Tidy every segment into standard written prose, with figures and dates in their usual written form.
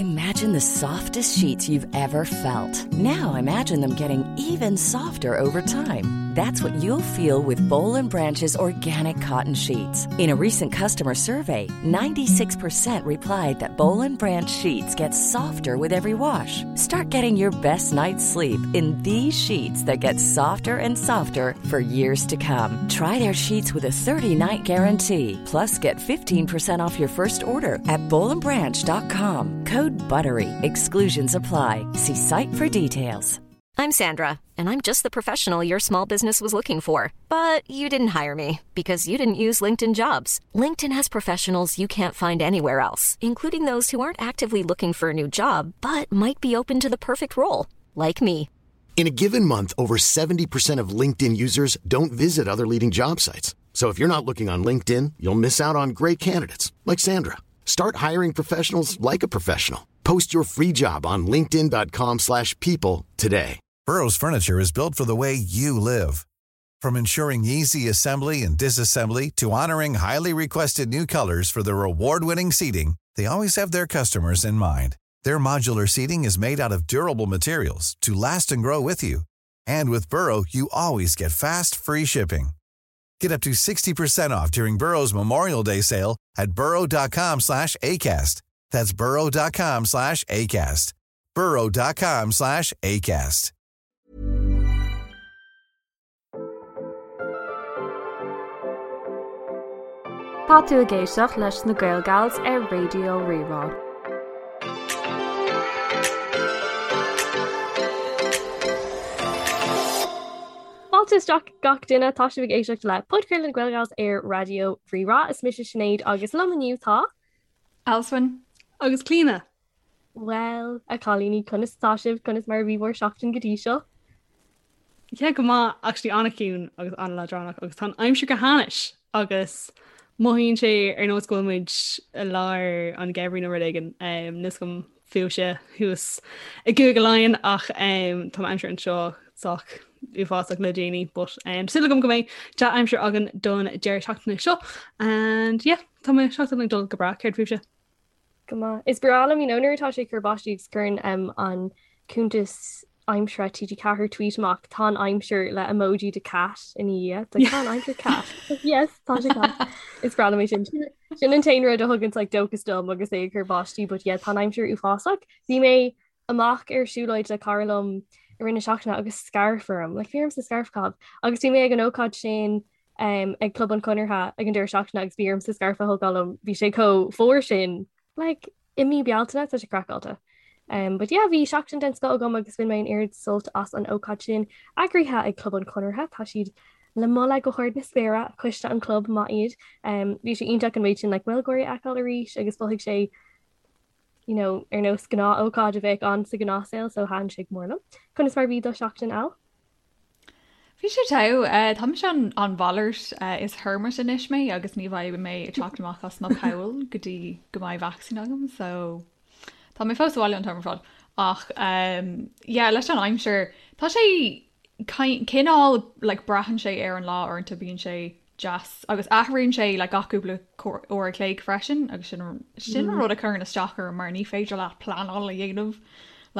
Imagine the softest sheets you've ever felt. Now imagine them getting even softer over time. That's what you'll feel with Boll and Branch's organic cotton sheets. In a recent customer survey, 96% replied that Boll and Branch sheets get softer with every wash. Start getting your best night's sleep in these sheets that get softer and softer for years to come. Try their sheets with a 30-night guarantee. Plus, get 15% off your first order at bollandbranch.com. Code BUTTERY. Exclusions apply. See site for details. I'm Sandra, and I'm just the professional your small business was looking for. But you didn't hire me because you didn't use LinkedIn jobs. LinkedIn has professionals you can't find anywhere else, including those who aren't actively looking for a new job but might be open to the perfect role, like me. In a given month, over 70% of LinkedIn users don't visit other leading job sites. So if you're not looking on LinkedIn, you'll miss out on great candidates like Sandra. Start hiring professionals like a professional. Post your free job on linkedin.com/people slash people today. Burrow's furniture is built for the way you live. From ensuring easy assembly and disassembly to honoring highly requested new colors for their award-winning seating, they always have their customers in mind. Their modular seating is made out of durable materials to last and grow with you. And with Burrow, you always get fast, free shipping. Get up to 60% off during Burrow's Memorial Day sale at burrow.com slash ACAST. That's burrow.com slash ACAST. burrow.com slash ACAST. Tá tú ag éisteacht leis na Gaelgals ar Raidió Rí-Rá. Fáilte isteach gach duine, tá sibh ag éisteacht le podchraoladh na Gaelgals ar Raidió Rí-Rá. Is mise Sinéad agus liom inniu tá. Alswyn. Agus Clíona. Bhuel, a chailíní, conas atá sibh? Conas mar a bhí bhur seachtain go dtí seo? Yeah, go maith, actually an-chiúin agus an-leadránach agus tá an aimsir go hainnis agus mothaíonn sé ar nós go bhfuil muid i lár an gheimhridh nó rud éigin. Níl 'fhios agam fúibhse thuas i gCúige Laighean ach tá an aimsir anseo sách uafásach le déanaí but súil agam go mbeidh dea-aimsir againn don deireadh seachtaine seo and yeah, tá mo sheachtain ag dul go breá, céard fúibhse? Go maith. Is breá liom, you know, nuair atá sé ag cur báistí agus cuireann um, an cuntas aimsire TG4 tweet amach tá an aimsir le emoji de cat ina dhiaidh. Like, tá an aimsir cat. Yes, tá sé cat. Is breá liom é sin. Sin an t-aon rud a thugann like, dóchas dom agus é ag cur báistí, but yeah, tá an aimsir uafásach. Bhí mé amach ar siúlóid le cara liom i rith na seachtaine agus scairf orm, like, bhí ormsa scairf a chaitheamh. Agus bhí mé ag an ócáid sin um, ag Club an Chonartha ag an deireadh seachtaine agus bhí ormsa scairf a thógáil liom, bhí sé chomh fuar sin like, i mí Bealtaine, tá sé craiceáilte. Um, but yeah, bhí seachtain den scoth agam agus bhain mé an oiread sult as an ócáid sin eagraithe ag Club an Chonartha, tá siad le moladh go hard na spéire, coiste an chlub maith iad. Um, bhí sé iontach an méid sin like, Gaeilgeoirí a fheiceáil arís agus mhothaigh sé you know, ar nós gnáth-ócáid a bheadh ann sa ghnáthshaol so thaitin sé go mór liom. Conas mar bhí do sheachtain Al? Bhí sé togha. Tá mise an an mhalairt. Is hermit anois mé agus ní bheidh mé ag teacht amach as mo poll go dtí go mbeidh vacsaín agam so tá mé fós sa bhaile an t-am ar fad. Ach yeah leis an aimsir tá sé cineál like braitheann sé ar an lá uaireanta bíonn sé deas agus athraíonn sé like gach cúpla uair a chloig freisin agus sin sin an rud a chuireann isteach orm mar ní féidir leat pleanáil a dhéanamh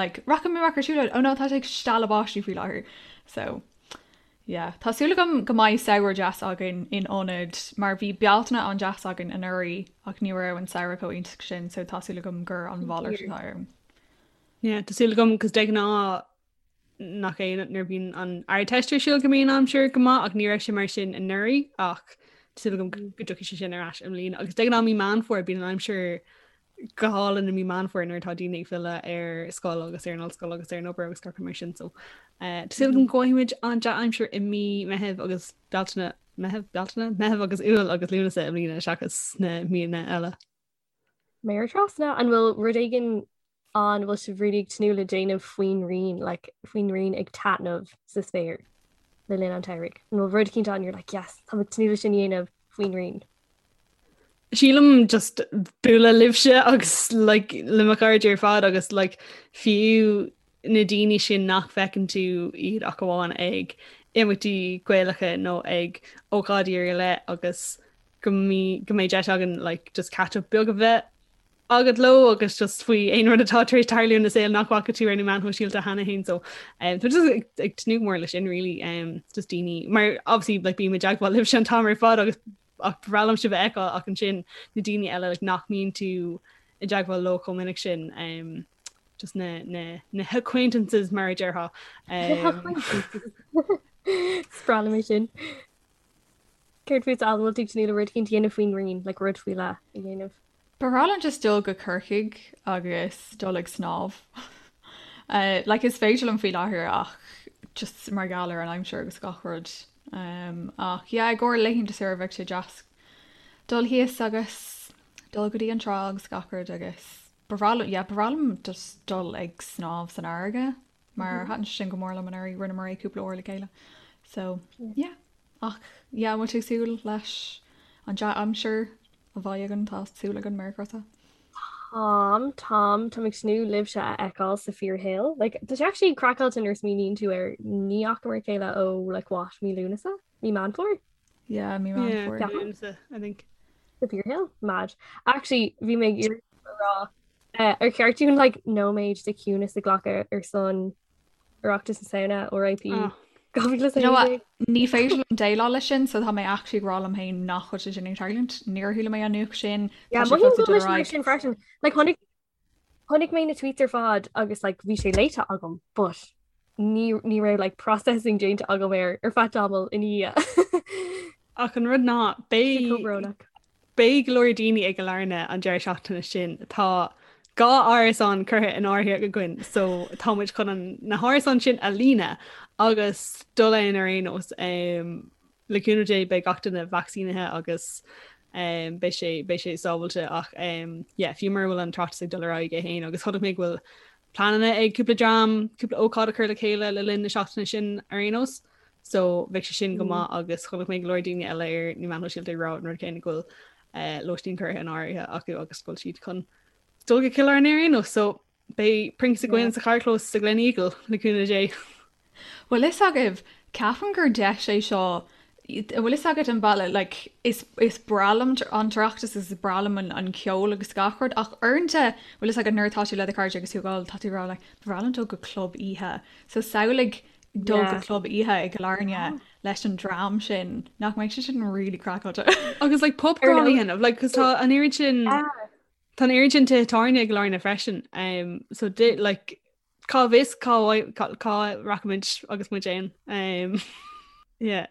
like rachaidh mé amach ar siúlóid oh no tá sé ag stealladh báistí faoi láthair so yeah tá súil agam go mbeidh samhradh deas againn in ionad mar bhí Bealtaine an-deas againn anuraidh ach ní raibh an samhradh chomh iontach sin so tá súil agam gur an mhalairt atá ann. Yeah, tá súil agam cos de ghnáth nach é nuair a bhíonn an Ardteist ar siúl go mbíonn an aimsir go maith ach ní raibh sé mar sin anuraidh ach tá súil agam go dtiocfaidh sé sin ar ais i mbliana agus de ghnáth mí Meán Fómhair bíonn an aimsir go hálainn i mí Meán Fómhair nuair atá daoine ag filleadh ar scoil agus ar an ollscoil agus ar an obair agus gach rud mar sin so eh, tá súil agam go bhfaighidh muid an dea-aimsir i mí Meitheamh agus Bealtaine Meitheamh Bealtaine Meitheamh agus Iúil agus Lúnasa i mbliana seachas na míonna eile. Méar trasna, an bhfuil rud éigin ann a bhfuil sibh really ag tnúth le déanamh faoin ngrian, like faoin ngrian ag taitneamh sa spéir le linn an tsamhraidh? An bhfuil rud eicínt ann you're like yes, tá mé ag tnúth le sin a dhéanamh faoin ngrian? Sílim just bualadh libhse agus like le mo chairde ar fad agus like fiú na daoine sin nach bhfeiceann tú iad ach amháin ag imeachtaí Gaelacha nó ag ócáidí ar leith agus go mbeidh deis againn like just catch up beag a bheith. agat leo agus just faoi aon rud atá tar éis tarlú ina saol nach bhfaca tú ar na meáin shóisialta cheana féin so um, tá just ag, ag tnúth go mór leis sin really um, just daoine mar obviously like bím i dteagmháil libhse an t-am ar fad agus ach ba bhreá liom sibh a fheiceáil ach ansin na daoine eile like, nach mbíonn tú i dteagmháil leo chomh minic sin um, just na, na, na acquaintances mar a déarfá. Um, Is breá liom é sin. Céard fútsa, an bhfuil tú ag tnúth le rud éicint a dhéanamh faoin ngrian, like rud faoi leith a dhéanamh? Ba bhreá liom just dul go Corcaigh agus dul ag snámh. Like is féidir liom faoi láthair ach just mar gheall ar an aimsir agus gach rud. Um, ach yeah, i gcomhair laethanta saoire bheadh sé deas dul thíos agus dul go dtí an trá agus gach rud agus ba bhreá liom, yeah, ba bhreá liom just dul ag snámh san fharraige. Mar thaitin sé sin go mór liom anuraidh, rinneamar é cúpla uair le chéile. So, yeah. Ach, yeah, an bhfuil tú ag súil leis an dea-aimsir a bheidh againn? Tá súil againn, Merry Christmas. Táim, táim, táim ag tnúth libhse a fheiceáil sa fíorshaol. Like, tá sé actually craiceáilte nuair a smaoiníonn tú air ní fhacamar a chéile ó like what, mí Lúnasa? Mí Meán Fómhair? Yeah, mí Meán Yeah, Fómhair. Lúnasa, I think. Sa fíorshaol? Mad. Actually, bhí mé ag iarraidh a rá Ar cheart dúinn like nóiméad de chiúnas a ghlacadh ar son Oireachtas na Samhna, RIP 2016? Ní féidir liom déileáil leis sin, so tá mé actually ag rá liom féin nach bhfuil sé sin ag tarlúint. Níor chuala mé an nuacht sin. Yeah, mothaím go bhfuil mar sin freisin. Like chonaic chonaic mé na tweets ar fad agus like bhí sé léite agam, but ní ní raibh like processing déanta agam air ar feadh tamaill ina dhiaidh. Ach an rud ná beidh Chomh brónach. Beidh go leor daoine i gCill Airne an deireadh seachtaine sin. Tá 2 árasán curtha in áirithe againn so tá muid chun an na hárasáin sin a líonadh agus dul ann ar aon nós. Le cúnamh Dé beidh gach duine vacsaínithe agus beidh sé beidh sé sábháilte ach yeah fiú mura bhfuil an tOireachtas ag dul ar aghaidh é féin agus chonaic mé go bhfuil pleananna ag cúpla dream cúpla ócáid a chur le chéile le linn na seachtaine sin ar aon nós. So bheadh sé sin go maith agus chonaic mé go leor daoine eile ar na meáin shóisialta ag rá an rud céanna go bhfuil lóistín curtha in áirithe acu agus go bhfuil siad chun dul go Cill Airne ar aon nós. So beidh Prince againn sa charrchlós sa Gleneagle le cúnamh Dé. Bhfuil fhios agaibh, ceapaim gur deis é seo, bhfuil fhios agat an bealach, like, is, is breá liom an tOireachtas agus is breá liom an, an ceol agus gach rud ach uaireanta, bhfuil fhios agat nuair atá tú le do chairde agus tú ag ól, tá tú ag rá like, ba bhreá liom dul go club oíche. So samhlaigh dul go club oíche i gCill Airne leis an dream sin, nach mbeidh sé sin really craiceáilte. Agus like pub crawl a dhéanamh, like cos tá an oiread sin tá an oiread sin tithe tábhairne i gCill Airne freisin. Um, so di, like cá bhfios cá cá rachaimid agus muid ann. Um, yeah.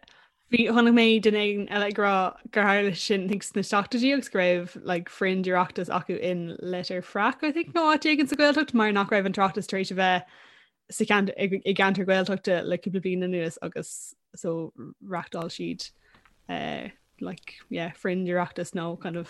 Bhí chonaic mé duine éigin eile ag rá gur tharla sin think sna seachtóidí agus go raibh like fringe Oireachtas acu in Leitir Fraic I think nó áit éigin sa Ghaeltacht mar nach raibh an tOireachtas tar éis a bheith sa cheantar i gceantar Gaeltachta le cúpla bliain anuas agus so reachtáil siad uh, like yeah fringe Oireachtas nó kind of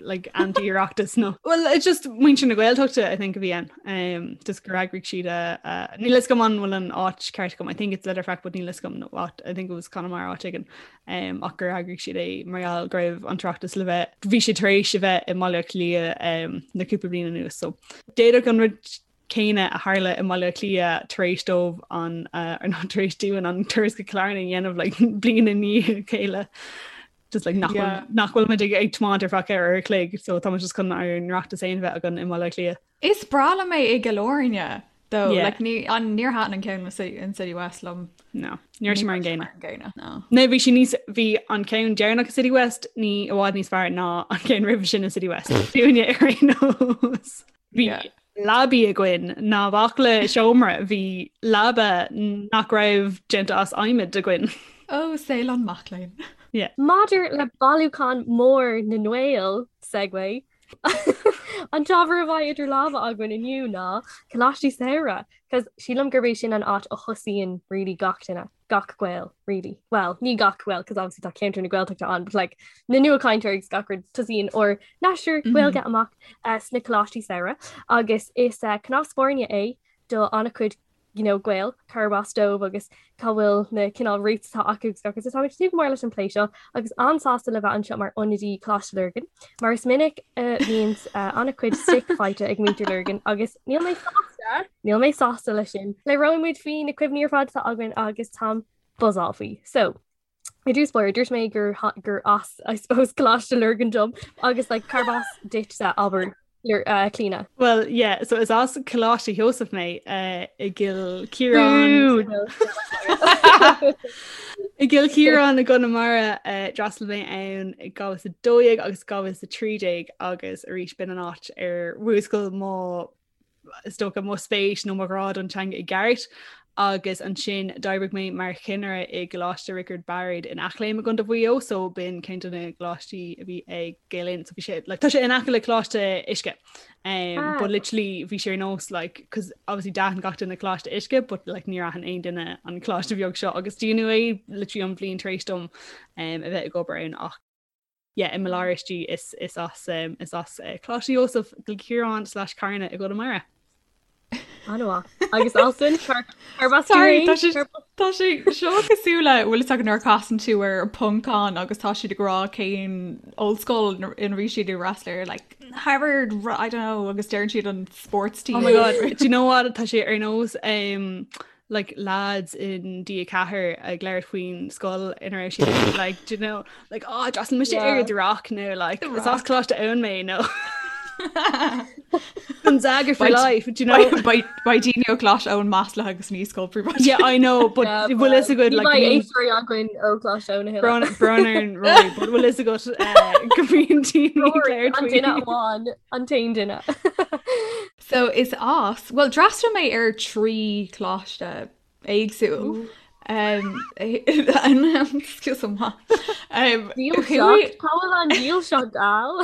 like anti-Oireachtas nó well it's just muintir na Gaeltachta I think a bhí ann um, just gur eagraigh siad a uh, níl fhios agam an bhfuil an áit ceart agam I think it's Leitir Fraic but níl fhios agam nó áit I think it was Conamara áit éigin um, ach gur eagraigh siad é mar gheall go raibh an tOireachtas le bheith bhí sé tar éis a bheith i mBaile Átha Cliath um, na cúpla bliain anuas so d'fhéadfadh an rud céanna a tharla i mBaile Átha Cliath tar éis dóibh an ar nó tar éis dúinn an turas go Cill Airne a dhéanamh like, bliain i ndiaidh a chéile. Just like nach yeah. nach bhfuil muid ag ag tiomáint ar feadh uair a chloig, so tá muid just chun ár n-Oireachtas féin bheith againn i mBaile Átha Cliath. Is breá liom é i gCill Airne though. Yeah. Like, ní, an, níor thaitin an ceann in City West liom. No, ní raibh sé mar an gcéanna. gcéanna. No. No, bhí sé níos bhí an ceann deireanach i City West ní i bhfad níos fearr ná an ceann roimhe sin i City West. Dúinne ar aon nós. Bhí leabaí againn ná baicle seomra, bhí leaba nach raibh déanta as adhmad againn. Ó, saol an mac léinn. Yeah. Maidir le bailiúchán mór na nGael, segue, an t-ábhar a bheidh idir lámha againn inniu ná Coláistí Samhraidh, 'cause sílim gurb é sin an áit a thosaíonn really gach duine. gach Gael, really. Well, ní gach Gael, cos obviously tá ceantar na Gaeltachta ann, but like na nuachainteoirí agus gach rud tosaíonn ár n-aistear Gaeilge amach uh, sna coláistí samhraidh agus is uh, cnámh spairne é do an-chuid you know, Gael cárb as dóibh agus cá bhfuil na cineál roots atá acu agus gach rud. So táimid ag tnúth go mór leis an plé seo agus an-sásta le bheith anseo mar ionadaí Coláiste Lurgan, mar is minic a bhíonn uh, an-chuid stick faighte ag muintir Lurgan agus níl mé sásta Níl mé sásta leis sin. Labhróidh muid faoi na cuimhní ar fad atá againn agus táim buzzáil faoi. So, i dtús báire, dúirt mé gur gur as, I suppose, Coláiste Lurgan dom agus like, cárb as duitse abair. Clíona. Well yeah, so is as Coláiste Sheosaimh mé i gCill Chiaráin. I gCill Chiaráin i gConamara d'fhreastail mé ann i 2012 agus 2013 agus arís b'in an áit ar mhúscail mo is dócha mo spéis nó mo ghrá don teanga i gceart agus ansin d'oibrigh mé mar chinnire i gColáiste Riocard Bairéad in Eachléim i gContae Mhaigh Eo so b'in ceann de na gcoláistí a bhí ag Gael Linn so bhí sé like, tá sé in aice le Coláiste Uisce um, ah. but literally bhí sé ar nós like cos obviously d'aithin gach duine Coláiste Uisce but like níor aithin aon duine an coláiste bheag seo agus dúnadh é literally an bhliain tar éis dom um, a bheith ag obair ann ach yeah, i mo lár istigh is is as um, is as uh, Coláiste Sheosaimh Cill Chiaráin slash Carna i gConamara. An-mhaith. Agus Alswyn Sorry, tá sé tá sé seo cosúil le bhfuil fhios agat nuair a casann tú ar Poncán agus tá siad ag rá cén ollscoil ina bhí siad ag freastal ar like Harvard I don't know agus deireann siad an sports team. Oh my god, do you know what tá sé ar nós um, like lads in D4 ag labhairt faoin scoil ina raibh siad like do you know like oh d'fhreastail mise ar The Rock nó like is as Coláiste Eoin mé nó Gonzaga for life do you know Beidh daoine ó Choláiste Eoin maslaithe agus ní scoil príobháideach. Yeah I know but bhfuil fhios agat like éisteoirí againn ó Choláiste Eoin a thuilleadh. Brón ar Rory but bhfuil fhios agat go mbíonn daoine ag labhairt An duine amháin an t-aon duine. So is as, bhuel d'fhreastail mé ar 3 choláiste éagsúil. Excuse me. Dílseacht, cá bhfuil an dílseacht Al?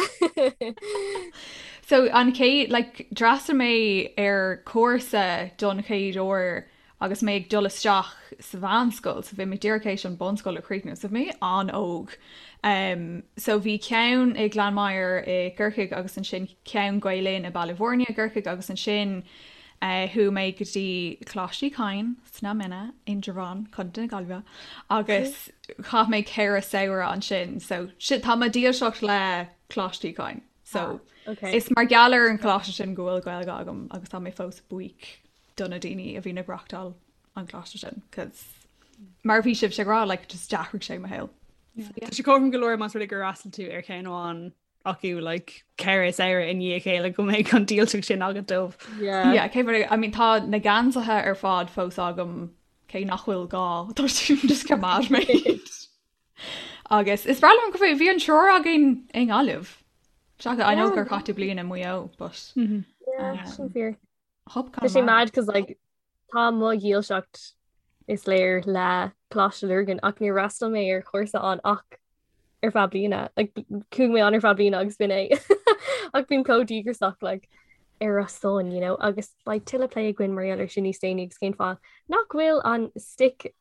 So an chéad, like, d'fhreastail mé ar cúrsa don chéad uair agus mé ag dul isteach sa mheánscoil, so bhí mé díreach théis an bunscoil a chríochnú, so bhí mé an-óg. So bhí ceann i Gleann Maghair i gCorcaigh agus ansin ceann Gael Linn i Baile Bhúirne i gCorcaigh agus ansin chuaigh mé go dtí Coláiste Uí Chadhain sna Mine, Indreabhán, Contae na Gaillimhe agus chaith mé 4 samhradh ansin. So tá mo dhílseacht le Coláiste Uí Chadhain. So is mar gheall ar an choláiste sin go bhfuil Gaeilge agam agus tá mé fós buíoch do na daoine a bhíonn ag reachtáil an choláiste sin cos mar a bhí sibhse ag rá like just d'athraigh sé mo shaol. Tá sé cothrom go leor más rud é gur fhreastail tú ar cheann amháin acu like 4 samhradh i ndiaidh a chéile go mbeidh an dílseacht sin agat dóibh. Yeah. Yeah, cé I mean tá na geansaithe ar fad fós agam cé nach bhfuil gá tá siad just coimeád mé. Agus is breá liom go bhí an triúr againn i nGaillimh. Seachas I know gur chaith tú bliain i Maigh Eo, but Yeah, sin fíor. Tá sé mad cos like tá mo dhílseacht is léir le Coláiste Lurgan ach níor fhreastail mé ar chúrsa ann ach ar feadh bliana. Like chuaigh mé ann ar feadh bliana agus b'in é. Ach bím chomh díograiseach like ar a son, you know, agus beidh tuilleadh plé againn mar gheall ar sin níos déanaí agus cén fáth nach bhfuil an stick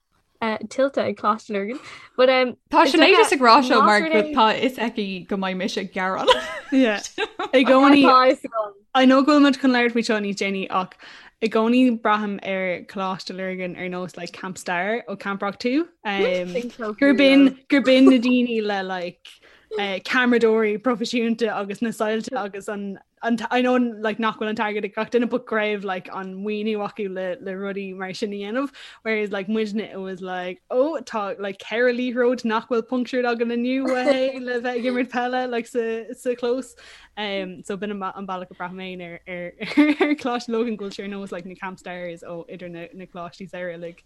tuillte ag Coláiste Lurgan. But um, Tá Sinéad just ag rá seo mar tá fhios aici go mbeidh mise ag gearán. I gcónaí I know go bhfuil muid chun labhairt faoi seo níos déanaí ach i gcónaí braithim ar Coláiste Lurgan ar nós like Camp Star ó Camp Rock 2 um, gur b'in gur b'in na daoine le like uh, ceamaradóirí proifisiúnta agus na soilse agus an an I know like nach bhfuil an t-airgead ag gach duine but go raibh like an maoiniú acu le le rudaí mar sin a dhéanamh whereas like muidne it was like oh tá like ceithre liathróid nach bhfuil punctured againn inniu hey le bheith ag imirt peile like sa sa chlós um so b'in an an bealach a braithim féin ar ar ar Coláiste Lurgan go bhfuil sé ar nós like na camp stars ó idir na na coláistí samhraidh uilig.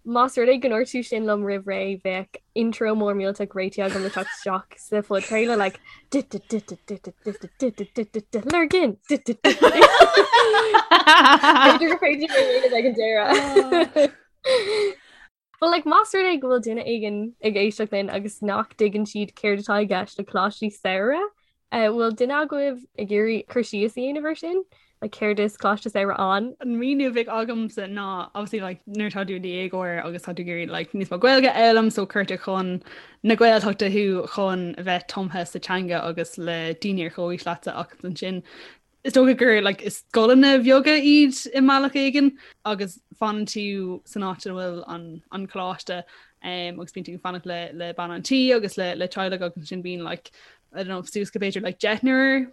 Más rud é go ndúirt tú sin liom roimh ré, bheadh intro mór millteach réitithe agam le teacht isteach sa phodchraoladh like Lurgan! B'fhéidir gur féidir é a dhéanamh ag an deireadh. But like más rud é go bhfuil duine éigin ag éisteacht linn agus nach dtuigeann siad céard atá i gceist le coláistí samhraidh, Bhfuil duine agaibh ag iarraidh cur síos a dhéanamh air sin? Like céard is Coláiste Samhraidh ann? An míniú a bheadh agamsa ná obviously like nuair atá tú i do dhéagóir agus tá tú ag iarraidh like níos mó Gaeilge a fhoghlaim so cuirtear chun na Gaeltachta thú chun a bheith tumtha sa teanga agus le daoine ar chomhaois leatsa ach ansin is dócha gur like is scoileanna bheaga iad i mbealach éigin agus fanann tú san áit ina bhfuil an an coláiste um, agus bíonn tú ag fanacht le le bean an tí agus le le teaghlach agus ansin bíonn like I don't know, suas go b'fhéidir like deichniúr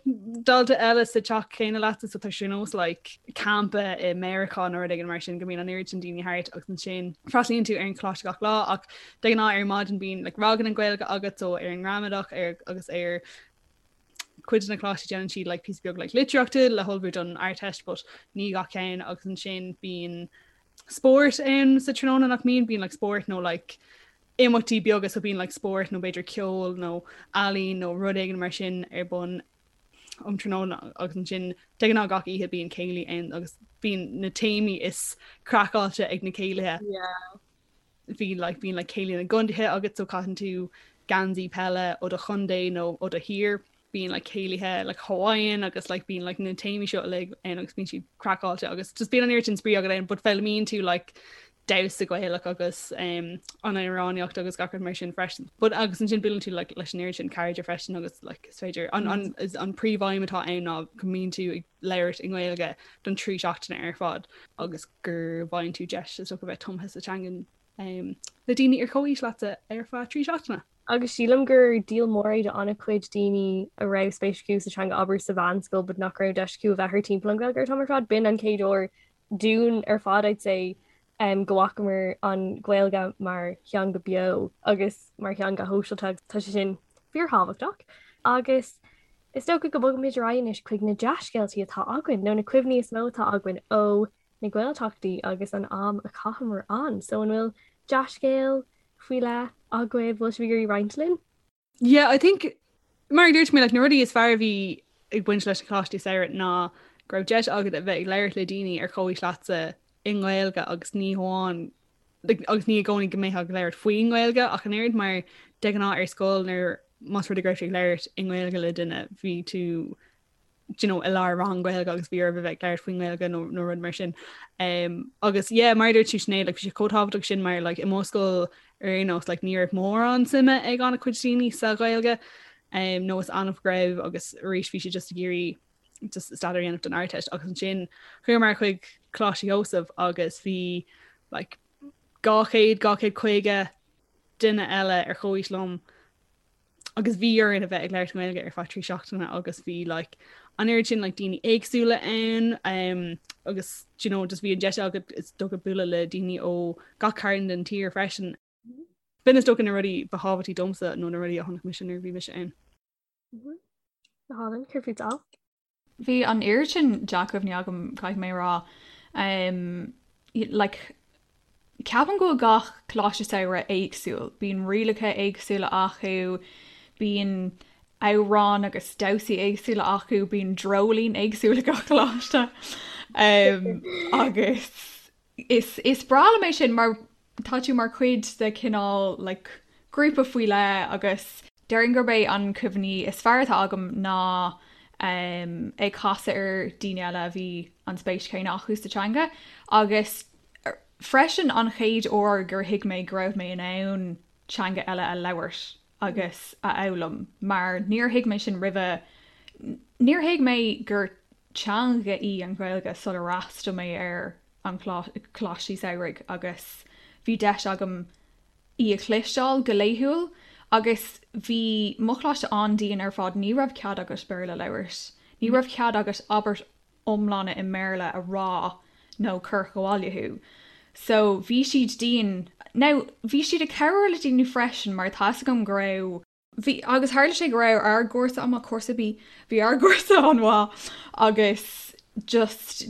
dalta eile sa teach céanna leatsa so tá sé nós like campa i Meiriceá nó rud éigin mar sin go mbíonn an oiread sin daoine thart agus ansin freastalaíonn tú ar an choláiste gach lá ach de ghnáth ar maidin bíonn like ranganna Gaeilge agat so ar an ngramadach ar agus ar Cuid de na coláistí déanann siad like píosa beag like litríochta le hullmhú don Ardteist but ní gach ceann agus ansin bíonn spórt ann sa tráthnóna nach mbíonn, bíonn like spórt nó like imeachtaí beaga so bíonn like spórt nó b'fhéidir ceol nó ealaín nó rud éigin mar sin ar bun um tráthnóna agus ansin de ghnáth gach oíche bíonn céilí ann agus bíonn na téamaí is craiceáilte ag na céilithe. Yeah. Bhí like bíonn like céilí na gcontaetha agat so caitheann tú geansaí peile ó do chontae nó ó do thír. Bíonn like céilithe like Hawaiian agus like bíonn like na téamaí seo uilig ann agus bíonn siad craiceáilte agus just bíonn an oiread sin spraoi agat ann but foghlaimíonn tú like damhsa Gaelach agus um, an amhránaíocht agus gach rud mar sin freisin. But agus ansin buaileann tú like, leis an oiread sin cairde freisin agus like, is féidir an, an, is an príomhaidhm atá ann ná go mbíonn tú ag labhairt i nGaeilge don trí seachtaine ar fad agus go bhfaigheann tú deis is dócha bheith tumtha sa teangain um, le daoine ar comhaois leatsa ar feadh trí seachtaine. Agus sílim gur díol mór é do an-chuid daoine a raibh spéis acu sa teanga abair sa mheánscoil but nach raibh deis acu a bheith thart timpeall an Ghaeilge an t-am ar fad. B'in an chéad uair dúinn ar fad I'd say um, go bhfacamar an Ghaeilge mar theanga beo agus mar theanga shóisialta agus tá sé sin fíorthábhachtach. Agus is dócha go mbogfaimid ar aghaidh anois chuig na dea-scéaltaí atá againn nó na cuimhní is mó atá againn ó na Gaeltachtaí agus an am a chaitheamar ann. So an bhfuil dea-scéal faoi leith agaibh, bhfuil sibh ag iarraidh roinnt linn? Yeah, I think mar a dúirt mé like, na rudaí is fearr a bhí ag baint leis na coláistí samhraidh ná go raibh deis agat a bheith ag labhairt le daoine ar chomhaois leatsa i nGaeilge agus ní hamháin like, agus ní i gcónaí go mbeifeá ag labhairt faoin nGaeilge ach an oiread mar de ghnáth ar scoil nuair más rud é go raibh tú ag labhairt i nGaeilge le duine bhí tú you know, i lár rang Gaeilge agus bhí oraibh a bheith ag labhairt faoin nGaeilge nó, nó rud mar sin. Um, agus yeah, mar a dúirt tú Sinéad, like, bhí sé chomh tábhachtach sin mar like, i mo scoil ar aon nós like, ní raibh mórán suime ag an-chuid daoine sa Ghaeilge um, nó is annamh go raibh agus arís bhí siad just ag iarraidh just staidéar a dhéanamh don Ardteist agus ansin chuamar chuig Coláiste Sheosaimh agus bhí like, 200 250 duine eile ar chomhaois liom agus bhí orainn a bheith ag labhairt Gaeilge ar feadh 3 seachtaine agus bhí like, an oiread sin like, daoine éagsúla ann um, agus you know, just bhí an deis agat is dócha bualadh le daoine ó gach cearn den tír freisin. B'in is dócha na rudaí ba thábhachtaí domsa nó na rudaí a chonaic mise nuair a bhí mise ann. Mm-hmm. Go hálainn, céard fút Al? Bhí an oiread sin dea-chuimhní agam, caithfidh mé a rá. Um, like, ceapaim go bhfuil gach coláiste samhraidh éagsúil. Bíonn rialacha éagsúla acu, bíonn amhráin agus damhsaí éagsúla acu, bíonn dreoilín éagsúil ag gach coláiste. Um, agus Is is breá liom é sin mar tá tú mar chuid de chineál like grúpa faoi leith agus déarfainn gurb é an cuimhní is fearr atá agam ná um, ag casadh ar daoine eile a bhí an spéis chéanna acu sa teanga agus freisin an chéad uair gur thuig mé go raibh mé in ann teanga eile a labhairt agus a fhoghlaim mar níor thuig mé sin roimhe, níor thuig mé gur teanga í an Ghaeilge sular fhreastail mé ar an choláistí samhraidh agus bhí deis agam í a chloisteáil go laethúil agus bhí mo choláiste an-dian ar fad, ní raibh cead agat Béarla a labhairt, ní raibh cead agat abairt iomlána i mBéarla a rá nó cuireadh abhaile thú. So bhí siad dian. Now bhí siad ag cabhrú le daoine freisin mar tá fhios agam go raibh, bhí, agus tharla sé go raibh ár gcúrsa an-mhaith, cúrsa B, bhí ár gcúrsa an-mhaith agus just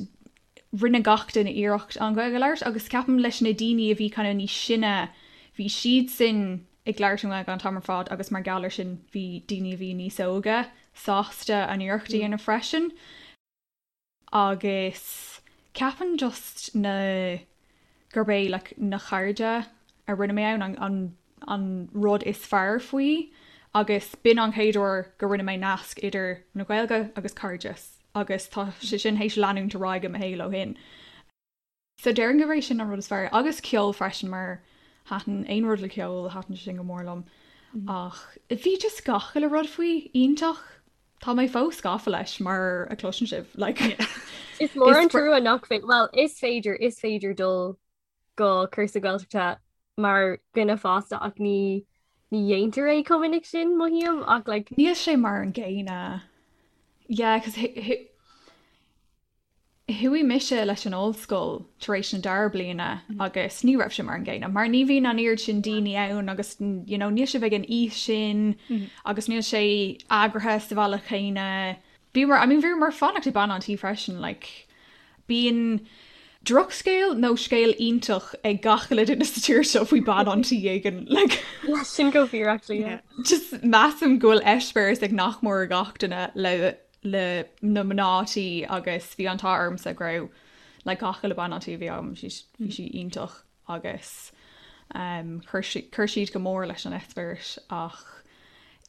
rinne gach duine iarracht an Ghaeilge a labhairt agus ceapaim leis na daoine a bhí kind of níos sine, bhí siadsan ag labhairt an Ghaeilge an t-am ar fad agus mar gheall ar sin bhí daoine a bhí níos óige sásta an iarracht a dhéanamh freisin. Agus ceapaim just na, gurb é like na cairde a rinne mé ann an an rud is fearr faoi agus b'in an chéad uair go rinne mé nasc idir na Gaeilge agus cairdeas agus tá sé sin théis leanúint ar aghaidh i mo shaol ó shin. So déarfainn gurb é sin an rud is fearr. Agus ceol freisin mar thaitin aon rud le ceol, thaitin sé sin go mór liom. Ach bhí just gach uile rud faoi iontach. Tá mé fós gafa leis mar a chloiseann sibh. Like, Is mór an trua nach féidir, well, is féidir, is féidir dul go cúrsa Gaeltachta mar dhuine fásta ach ní ní dhéantar é chomh minic sin, mothaím, ach like. Níl sé mar an gcéanna. Yeah, 'cause. Chuaigh mise leis an ollscoil tar éis na dara bliana agus ní raibh sé mar an gcéanna mar ní bhíonn an oiread sin daoine ann agus you know níl sibh ag an aois sin agus níl sé eagraithe sa bhealach chéanna. Bhíomar, I mean bhíomar fanacht ag bean an tí freisin like bíonn drochscéal nó scéal iontach ag gach uile duine sa tír seo faoi bean an tí éigin like. Yeah, sin go fíor actually, yeah. Just measaim go bhfuil eispéireas ag nach mór gach duine le le na mná tí agus bhí an t-ádh ormsa go raibh like gach uile bean an tí a bhí agam bhí sí iontach agus um, chuir siad go mór leis an eispéireas ach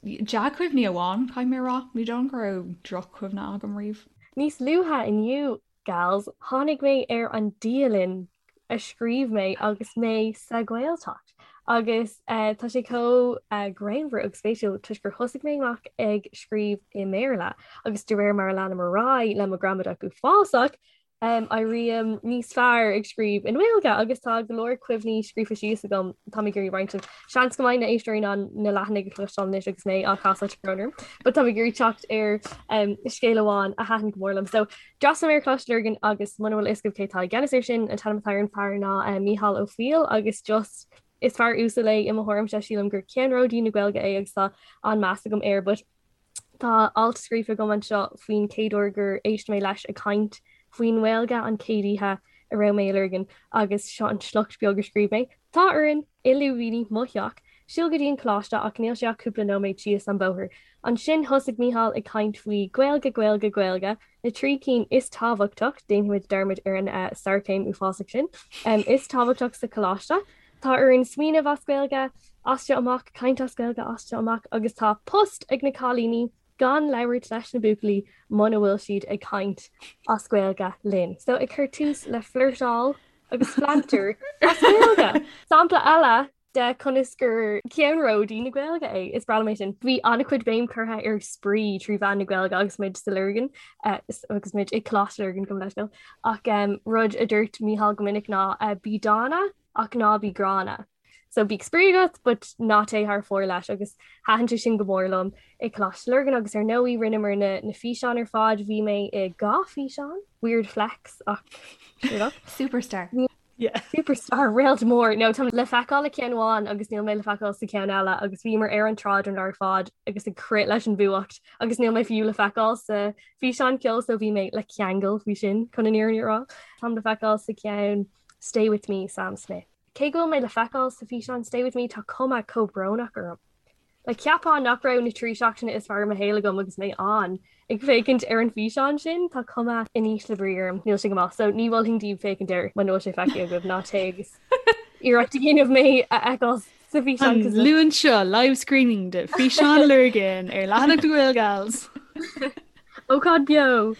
dea-chuimhní amháin caithfidh mé a rá, ní dóigh go raibh droch-chuimhne agam riamh. Níos luaithe inniu, gals, tháinig mé ar an dialann a scríobh mé agus mé sa Ghaeltacht. Agus tá sé chomh greannmhar agus spéisiúil toisc gur thosaigh mé amach ag scríobh i mBéarla agus de réir mar a leanaim ar aghaidh le mo ghramadach uafásach, éirím níos fearr ag scríobh i nGaeilge agus tá go leor cuimhní scríofa síos agam tá mé ag iarraidh roinnt libh. Seans go mbeidh na éisteoirí in ann na leathanaigh a chloisteáil anois agus mé á chasadh tá brón orm, but tá mé ag iarraidh teacht ar scéal amháin a thaitin go mór liom. So D'fhreastail mé ar Choláiste Lurgan agus muna bhfuil a fhios agaibh cé atá i gceannas air sin, an t-ainm atá ar an fear ná Mícheál Ó Foighil agus just is fear uasal é i mo thuairimse, sílim gur ceannródaí na Gaeilge é agus tá an-meas agam air but tá alt scríofa agam anseo faoin chéad uair gur éist mé leis ag caint faoin nGaeilge an chéad oíche a raibh mé i Lurgan agus seo an sliocht beag a scríobh mé. Tá orainn, i lúibíní, mo theach, siúl go dtí an coláiste ach níl sé ach cúpla nóiméad síos an bóthar. Ansin thosaigh Mícheál ag caint faoi Gaeilge, Gaeilge, Gaeilge, na trí cinn is tábhachtach, déanfaimid dearmad ar an sarchéim uafásach sin, is tábhachtach sa choláiste. Tá orainn smaoineamh as Gaeilge, as seo amach, caint as Gaeilge as seo amach agus tá post ag na cailíní gan labhairt leis na buachaillí muna bhfuil siad ag caint as Gaeilge linn. So ag cur tús le flirteáil agus flanter as Gaeilge. Sampla eile de conas gur ceannródaí na Gaeilge é. Is breá liom é sin. Bhí an-chuid béim curtha ar spraoi trí mheán na Gaeilge agus muid sa Lurgan eh, agus muid i Coláiste Lurgan gabh mo leithscéal. Ach um, rud a dúirt Mícheál go minic ná uh, bí dána ach ná bí gránna. So bíodh spraoi agat but ná téigh thar fóir leis agus thaitin sé sin go mór liom i Coláiste Lurgan agus ar ndóigh rinneamar na, na físeáin ar fad, bhí mé i dhá físeán, weird flex ach sure enough. Superstar. Yeah. Superstar réalt mór. No, tá le feiceáil i ceann amháin agus níl mé le feiceáil sa ceann eile agus bhíomar ar an tsráid an lá ar fad agus ag crith leis an bhfuacht agus níl mé fiú le feiceáil sa físeán ceoil so bhí mé le ceangal faoi sin chun an fhírinne a rá. Táim le feiceáil sa ceann Stay With Me, Sam Smith. Cé go bhfuil mé le feiceáil sa físeán Stay With Me tá cuma chomh brónach orm. Like cheapfá nach raibh na 3 seachtaine is fearr i mo shaol agam agus mé ann ag féachaint ar an bhfíseán sin, tá cuma in ísle brí orm, níl sé go maith, so ní mholfainn daoibh féachaint air muna bhfuil sé feicthe agaibh, ná téigh agus iarracht a dhéanamh mé a fheiceáil sa bhfíseán. An Luan seo, live screening de Físeán Lurgan ar leathanach na Gaelgals! Ócáid beo!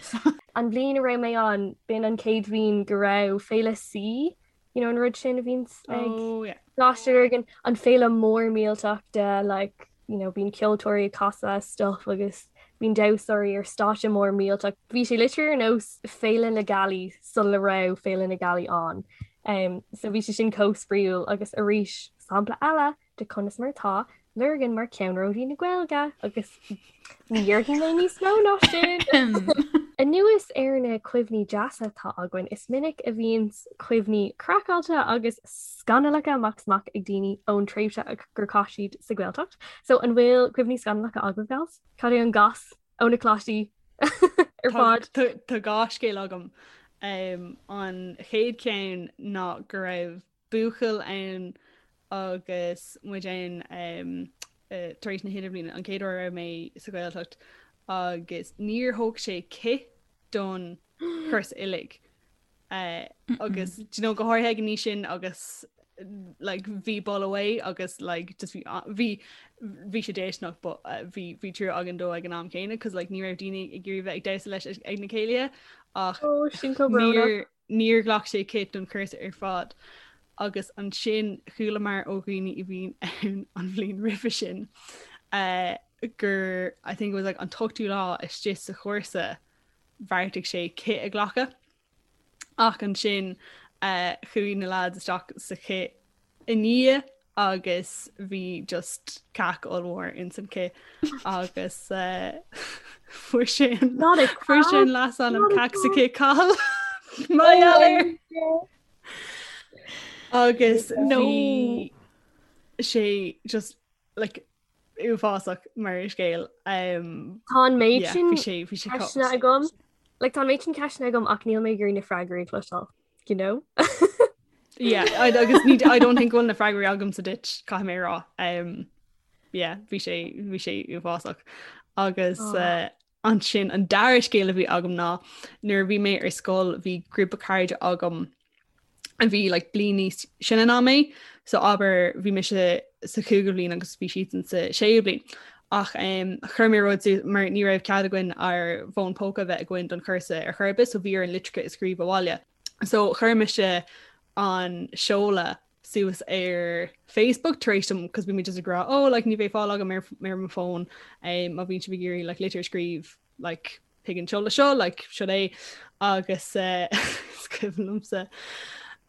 An bhliain a raibh mé ann, b'in an chéad bhliain go raibh Féile C you know an rud sin a bhíonns ag oh, yeah. Coláiste Lurgan an féile mór millteach de like you know bíonn ceoltóirí ag casadh stuff agus bíonn damhsóirí ar stáitse mór millteach. Bhí sé literally ar nós Féile na Gealaí sula raibh Féile na Gealaí ann. Um, so bhí sé sin chomh spraíúil agus arís sampla eile de conas mar atá Lurgan mar ceannródaí na Gaeilge agus ní dhéarfaidh mé níos mó ná sin. Anuas ar na cuimhní deasa atá againn, is minic a bhíonn cuimhní craiceáilte agus scannalacha amach is amach ag daoine ón tréimhse gur chaith siad sa Ghaeltacht. So an bhfuil cuimhní scannalacha agaibh, gals? Cad é an gas ó na coláistí ar fad? Tá dhá scéal agam. An chéad cheann ná go raibh buachaill ann agus muid ann tar éis na hidirbhliana, an chéad uair a raibh mé sa Ghaeltacht agus níor thóg sé cith don chúrsa uilig. Agus do you know, go háirithe ag an aois sin agus like bhí boladh uaidh agus like just bhí bhí bhí sé déistineach but bhí bhí trua againn dó ag an am céanna cos like ní raibh daoine ag iarraidh bheith ag damhsa leis ag na céilithe ach Oh, sin chomh brónach. Níor ghlac sé cith don chúrsa ar fad agus ansin chualamar ó dhaoine a bhí ann an bhliain roimhe sin gur I think it was like an t-ochtú lá istigh sa chúrsa bheartaigh sé cith a ghlacadh ach ansin chuaigh na lads isteach sa chith i ndiaidh agus bhí just cac ollmhór ins an cith agus fuair sé an fuair sé an leasainm cac sa cith Cathal. Mar gheall air. Agus bhí sé just like uafásach mar scéal. Um, Tá an méid sin ceisteanna agam. Like, tá an méid sin ceisteanna agam ach níl mé ag iarraidh na freagraí a chloisteáil, you know? Yeah, I, agus ní, I don't think go bhfuil na freagraí agamsa duit caithfidh mé a rá. Um, yeah, bhí sé bhí sé uafásach. Agus oh. uh, ansin an dara scéal a bhí agam ná nuair a bhí mé ar scoil bhí grúpa cairde agam a bhí like bliain níos sine ná mé, so abair bhí mise sa chúigiú bhliain agus bhí siadsan sa séú bliain. Ach um, chuir mé rud mar ní raibh cead againn ár bhfón póca bheith againn don chúrsa ar chor ar bith, so bhí orainn litreacha a scríobh abhaile. So chuir mise an seoladh suas ar Facebook tar éis dom cos bhí mé just ag rá oh like ní bheidh fáil agam ar ar mo fón um, má bhíonn sibh ag iarraidh like litir a scríobh like chuig an seoladh seo like seo é agus uh, is cuimhin liomsa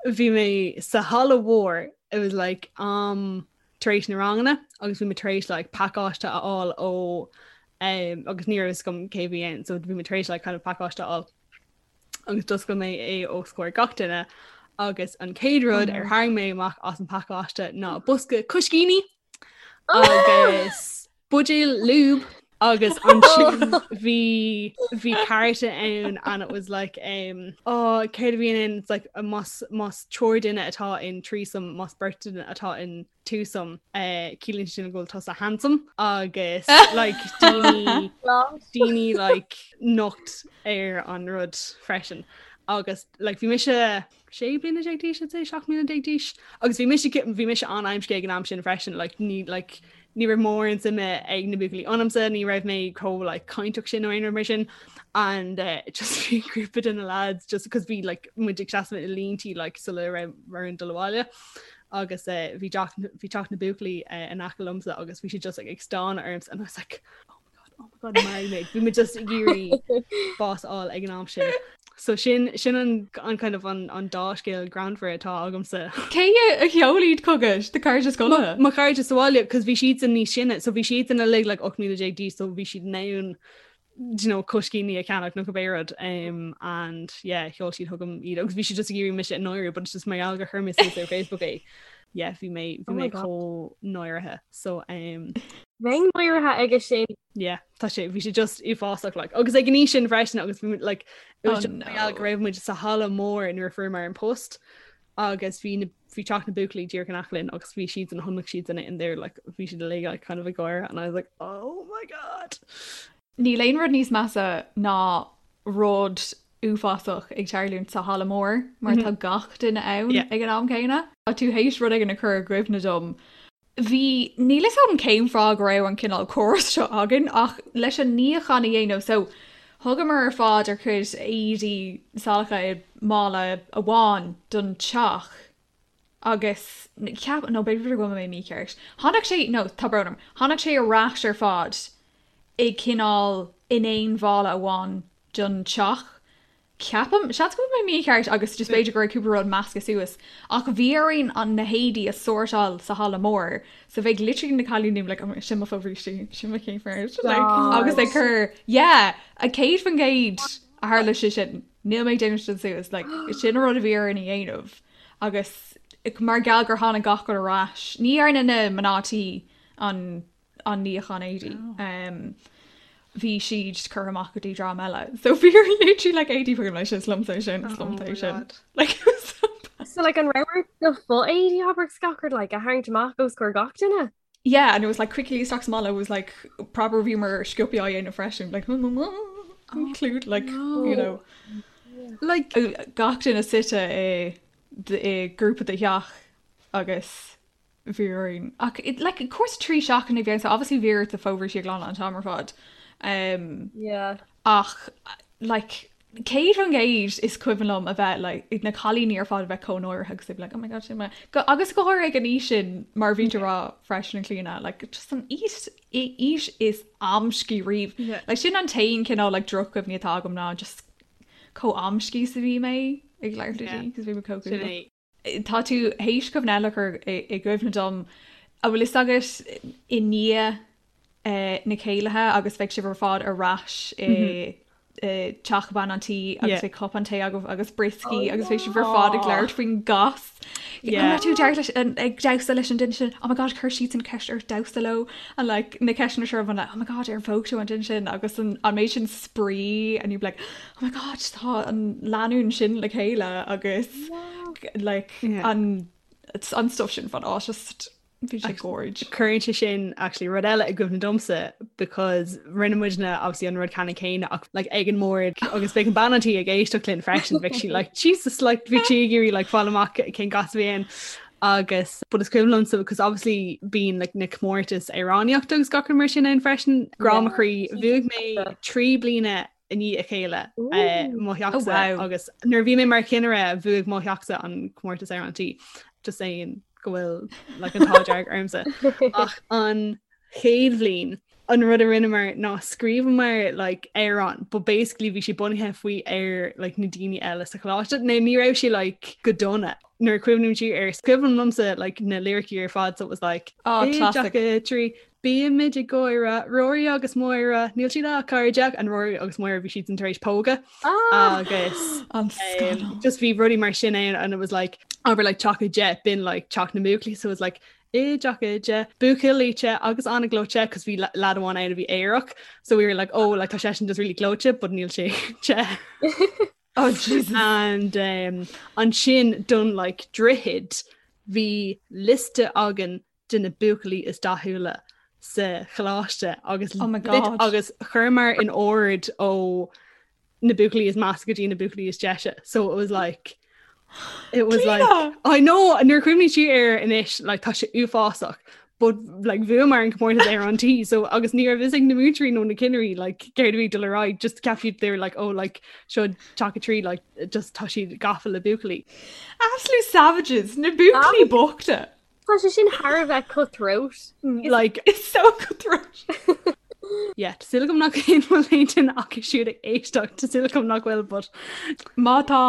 bhí mé sa halla mhór it was like um tar éis na ranganna agus bhí mé tar éis like pacáiste a fháil ó um, agus ní raibh fhios agam cé bhí ann so bhí mé tar éis like kind of pacáiste a fháil agus d'oscail mé é os comhair gach duine agus an chéad rud ar tharraing mé amach as an pacáiste ná bosca coiscíní agus buidéal lube agus ansin bhí bhí cárta ann and it was like um, oh, céard a bhí ann it's like más más triúr duine atá in threesome más beirt duine atá in twosome uh, ciallaíonn sin go bhfuil tusa handsome agus like daoine daoine like nocht ar an rud freisin agus like bhí mise 16 bliana d'aois I'd say 17 bliana d'aois agus bhí mise bhí mise an-amscaí ag an am sin freisin like ní like ní raibh mórán suime ag na buachaillí ionamsa ní raibh mé chomh like cainteach sin nó aon rud mar sin and uh, just bhí grúpa de na lads just because bhí like muid ag seasamh i línte like sula raibh orainn dul abhaile agus uh, bhí bhí teach na buachaillí uh, in aice liomsa agus bhí siad just like, ag stánadh ormsa and I was like oh my god oh my god maraigh mé bhí mé just ag iarraidh bás a fháil ag an am sin. So sin sin an, an kind of an, an dá scéal greannmhar atá agamsa. Cé a sheol iad chugat do chairde scoile? Mo chairde sa bhaile, cos bhí siadsan níos sine, so bhí siadsan uilig like 18 mbliana d'aois, so bhí siad in ann do you know, coiscíní a cheannach nó cibé rud um, and yeah, sheol siad chugam iad agus bhí siad just ag iarraidh mise a náiriú but it's just mar gheall gur chuir mé suas ar Facebook é. Yeah, bhí mé bhí oh mé chomh náirithe so um, Bheinn náirithe aige sin. Yeah, tá sé bhí sé just uafásach like agus ag an aois sin freisin agus bhí like it was oh, just mar gheall go raibh muid sa halla mór nuair a fuaireamar an post agus bhí na bhí teach na buachaillí díreach in aice linn agus bhí siad an chonaic siad in in there like bhí siad uilig like kind of ag gáire and I was like oh my god. Níl aon rud níos measa ná rud uafásach ag tarlúint sa halla mór mar tá gach duine ann ag an am céanna. Tá tú théis rud éigin a chur i gcuimhne dom Bhí, níl fhios agam cén fáth go raibh an cineál córas seo againn ach leis an níochán a dhéanamh so thugamar ar fad ár gcuid éadaí salacha i mála amháin don teach agus cheap, nó b'fhéidir go bhfuil mé mícheart, tháinig sé, no, tá brón orm, tháinig sé ar ais ar fad i cineál in aon mhála amháin don teach Ceapaim, seans go bhfuil mé mícheart agus just b'fhéidir go raibh cúpla rud measctha suas, ach bhí orainn an na héadaí a sórtáil sa halla mór so bheadh literally na cailíní like oh sin mo fobhrístí, sin mo chéimfear like agus ag cur yeah 100% a tharla sé sin, níl mé ag déanamh sin suas like sin an rud a bhí orainn a dhéanamh agus mar gheall gur tháinig gach rud ar ais, ní dhearna na mná tí an an níochán éadaí. Bhí siad curtha amach go dtí dream eile. So bhí literally like éadaí fuaim leis is liomsa é sin, is liomsa é sin. Like it was so bad. So like an raibh ort do fho-éadaí abair agus gach rud like a tharraingt amach os comhair gach duine? Yeah, and it was like quickly isteach sa mhála, it was like proper bhíomar sciobtha á dhéanamh freisin, like include like you know Like gach duine suite i i grúpa de theach agus bhí orainn. Ach like cúrsa 3 seachtaine a bhí ann so obviously bhí ort do fobhrístí a ghlanadh an t-am ar fad. Um, yeah. Ach like 100% is cuimhin liom a bheith like, na cailíní ar fad a bheith chomh náirithe agus like, oh my God, sin mé. Go, agus go háirithe ag an aois sin mar bhí tú ag rá freisin a Chlíona, like, just an aois aois is amscaí riamh. Yeah. Like, sin an t-aon cineál like, drochchuimhní atá agam ná just chomh amscaí is a bhí mé ag labhairt le daoine, 'cause bhí mé chomh Sin é. Tá tú théis cuimhne eile a chur i gcuimhne dom. An bhfuil fhios agat i ndiaidh na céilithe agus bheidh sibh ar fad ar ais i. teach bean an tí agus bhí cupán tae agaibh agus brioscaí agus bhí sibh ar fad ag labhairt faoin gcas. An raibh tú ag damhsa leis an duine sin? Oh my god, chuir siadsan ceist ort damhsa leo and like na ceisteanna seo like oh my god, ar phóg tú an duine sin agus an an méid sin spraoi and you'd be like oh my god, tá an lánúin sin le chéile agus like an an stuff sin fan á just Bhí sé gorge. Cuireann sé sin actually rud eile i gcuimhne domsa because rinne muidne obviously an rud ceannann céanna ach like ag an mbord agus bheadh an bean an tí ag éisteacht linn freisin bheadh sí like Jesus like bhí sí ag iarraidh like fáil amach cén gas a bhí ann agus but is cuimhin liomsa because obviously bíonn like na comórtais amhránaíochta agus gach rud mar sin ann freisin grá mo chroí bhuaigh mé 3 bliana i ndiaidh a chéile mo theachsa agus nuair a bhí mé mar chinnire bhuaigh mo theachsa an comórtas ar an tí just saying go bhfuil like an t-ádh dearg ormsa ach an chéad bhliain an rud a rinneamar ná scríobhamar like amhrán but basically bhí sé bunaithe faoi ar like na daoine eile sa choláiste nó ní raibh sé like go dona nuair a chuimhním siar air is cuimhin liomsa like na liricí ar fad so it was like oh, classic. 3 Bímid ag gáire, Rory agus Máire, níl siad ach cairde, and Rory agus Máire bhí siad tar éis pógadh agus An scannal. just bhí rudaí mar sin ann and it was like abair like teach 10 b'in like teach na mbuachaillí so it was like i dteach 10 buachaill te agus an-ghleoite cos bhí lad amháin ann a bhí aerach so we were like oh like tá seisean just really gleoite but níl sé te. Oh Jesus. And um, ansin don like droichead bhí liosta againn de na buachaillí is dathúla sa choláiste agus Oh my God. agus chuireamar in ord ó na buachaillí is measa go dtí na buachaillí is deise. So it was like it was like Clíona! I know nuair a chuimhním siar air anois like tá sé uafásach but like bhuamar an comórtas ar an tí so agus ní raibh fhios ag na múinteoirí nó na cinnirí like céard a bhí ag dul ar aghaidh just ceap siad they were like oh like seo teach 3 like just tá siad gafa le buachaillí. Absolute savages, na buachaillí bochta. Tá sé sin thar a bheith cutthroat. Like It's so cutthroat. yeah, tá súil agam nach aon bhfuil aon duine acu siúd ag éisteacht, tá súil agam nach bhfuil, but Má tá,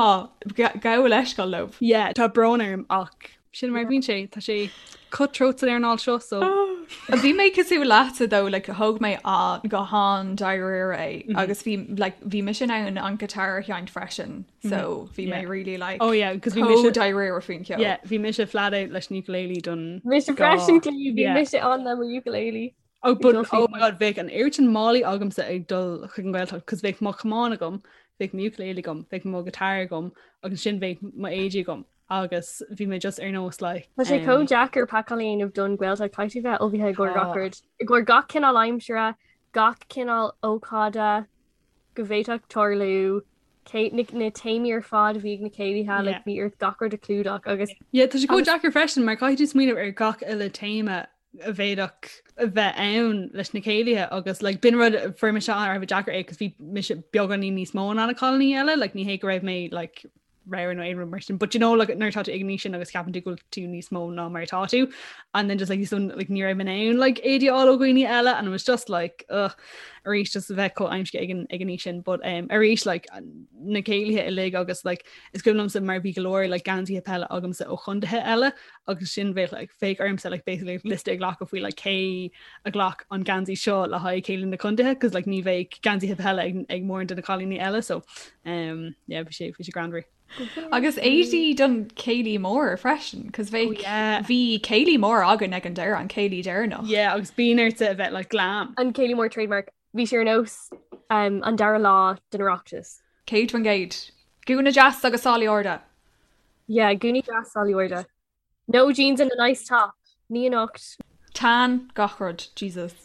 gabh leithscéal leo. yeah, tá brón orm ach sin mar a bhíonn sé, tá sé cutthroat san earnáil seo so. Bhí mé cosúil leatsa though, like thóg mé an go han-dáiríre é agus bhí like bhí mise in ann an guitar a sheinnt freisin. So bhí mé really like Oh yeah, cos bhí mise chomh dáiríre faoin cheol. Yeah, bhí mise flat out leis an ukulele don Mise freisin Clí, bhí mise ann le mo ukulele. Oh but oh my god, bheadh an oiread sin málaí agamsa ag dul chuig an Ghaeltacht cos bheadh mo chamán agam, bheadh mo ukulele agam, bheadh mo guitar agam agus ansin bheadh mo éadaí agam agus bhí mé just ar nós like Tá sé chomh deacair pacáil a dhéanamh don Ghaeltacht, caithfidh tú bheith ullmhaithe i gcomhair gach rud, i gcomhair gach cineál aimsire, gach cineál ócáide go bhféadfadh tarlú. cé na na téamaí ar fad a bhí ag na céilithe, like bhí ort gach rud a chlúdach agus Yeah, tá sé chomh deacair freisin mar caithfidh tú smaoineamh ar gach uile téama a bhféadfadh a bheith ann leis na céilithe agus like b'in rud a fuair mise thar a bheith deacair é cos bhí mise beagáinín níos mó ná na cailíní eile, like ní hé go raibh mé like ramhar nó aon rud mar sin, but you know like nuair atá tú ag an aois sin agus ceapann tú go bhfuil tú níos mó ná mar atá tú and then just like so like ní raibh mé in ann like éadaí a fháil ó dhaoine eile and it was just like ugh arís just a bheith chomh aimsithe ag an ag an aois sin but um, arís like na céilithe uilig agus like is cuimhin liomsa mar bhí go leor like geansaithe peile agamsa ó chontaetha eile agus sin bheadh like bheadh ormsa like basically liosta a ghlacadh faoi like cé a ghlac an geansaí seo le haghaidh céilí na contaetha cos like ní bheadh geansaithe peile ag, ag mórán de na cailíní eile so um, yeah, bhí sé bhí sé greannmhar. Agus éadaí don céilí mór freisin, cos bheadh, Oh yeah. bhí céilí mór againn ag an deireadh, an céilí deireanach. Yeah, agus bíonn ortsa a bheith like glam. An céilí mór trademark, bhí sé ar nós um, an dara lá den Oireachtas. 100%. Gúna deas agus sálaí arda. Yeah, gúnaí deas sálaí arda. No jeans and a nice top. Ní anocht. Tan gach rud, Jesus.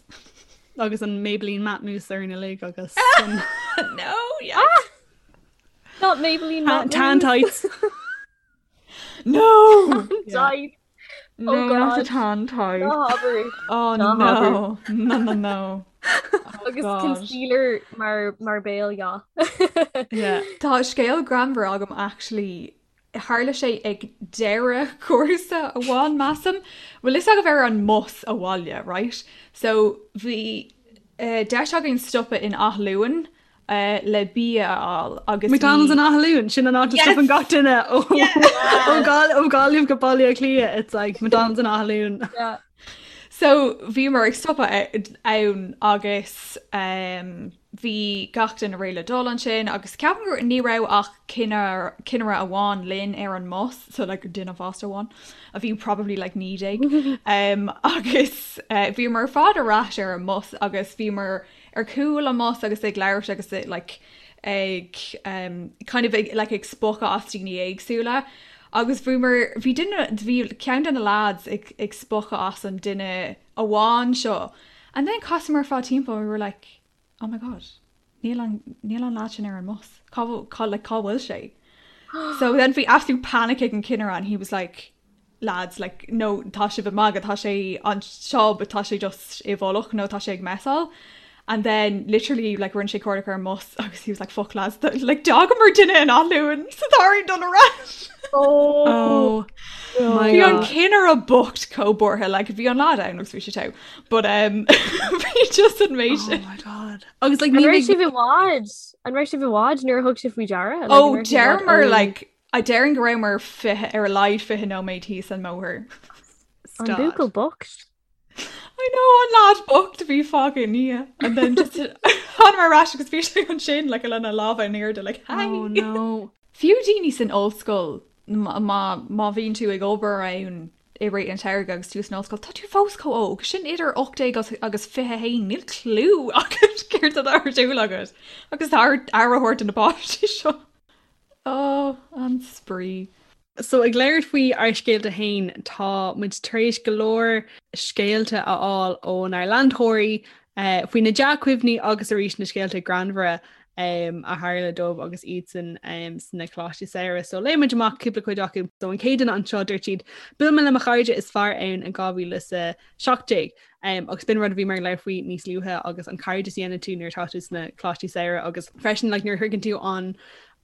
Agus an Maybelline Matte Mousse orainn uilig agus an No, yes. Not Maybelline Matte Tan Mousse. tights. No! Tight. No, Oh not the God. tan tight. Ná habair. Oh Ná habair. no. No, no, no. Oh Agus God. concealer mar mar béal, yeah. Yeah. Tá scéal greannmhar agam actually Tharla sé ag deireadh cúrsa amháin, measaim. Bhfuil fhios agaibh ar an mbus abhaile, right? So bhí deis againn stopadh in Áth Luain le bia a fháil agus bhí. McDonald's in Áth Luain, sin an áit a stopann gach duine ó ó Gaillimh go Baile Átha Cliath, it's like McDonald's in Áth Luain. Yeah. So bhíomar ag stopadh ann agus bhí gach duine réidh le dul ansin agus ceapaim gur ní raibh ach cinnire amháin linn ar an mbus, so like duine fásta amháin a bhí probably like 19 agus bhíomar ar fad ar ais ar an mbus agus bhíomar ar chúl an mbus agus ag labhairt agus like ag kind of ag like ag spochadh as daoine éagsúla agus bhíomar bhí duine bhí ceann de na lads ag ag spochadh as an duine amháin seo and then chasamar ar fad timpeall and we were like oh my god níl an níl an lad sin ar an mbus cá cá like cá bhfuil sé so then bhí absolute panic ag an cinnire and he was like lads like no tá sibh ag magadh tá sé anseo but tá sé just i bhfolach nó tá sé ag messáil and then literally like rinne sé cuardach ar an mbus agus he was like fuck lads like d'fhágamar duine in Áth Luain so tá orainn dul ar ais. Oh my Bhí an cinnire bocht chomh buartha like bhí an lad ann agus bhí sé togha but um bhí just an méid Oh my god. Agus like An raibh sibh i bhfad? An raibh sibh i bhfad nuair a thug sibh faoi deara? Like, Oh an raibh sibh i bhfad deireamar ó- like I déarfainn go rabhamar 20, ar a laghad 20 nóiméad thíos an mbóthar. An buachaill bocht. I know, an lad bocht a bhí fágtha i ndiaidh. And then just thánamar ar ais agus bhí sé ansin like lena lámha in airde like hi. Oh no. Fiú daoine san ollscoil má má bhíonn tú ag obair ann i rith an tsamhraidh agus tú san ollscoil, tá tú fós chomh óg. Sin idir 18 agus 21, níl clue agat céard atá ar siúl agat. Agus tá aire a thabhairt do na páistí seo. Ó, an spraoi. So ag labhairt faoi ár scéalta féin, tá muid tar éis go leor scéalta a fháil ónár leantóirí faoi na dea-chuimhní agus arís na scéalta greannmhara a tharla dóibh agus iadsan sna coláistí samhraidh. So léifidh muid amach cúpla cuid acu. So an chéad duine anseo dúirt siad, Bhuail mé le mo chairde is fearr ann in 2017. Agus b'in rud a bhíomar ag labhairt faoi níos luaithe agus an cairdeas a dhéanann tú nuair atá tú sna coláistí samhraidh agus freisin like nuair a shroicheann tú an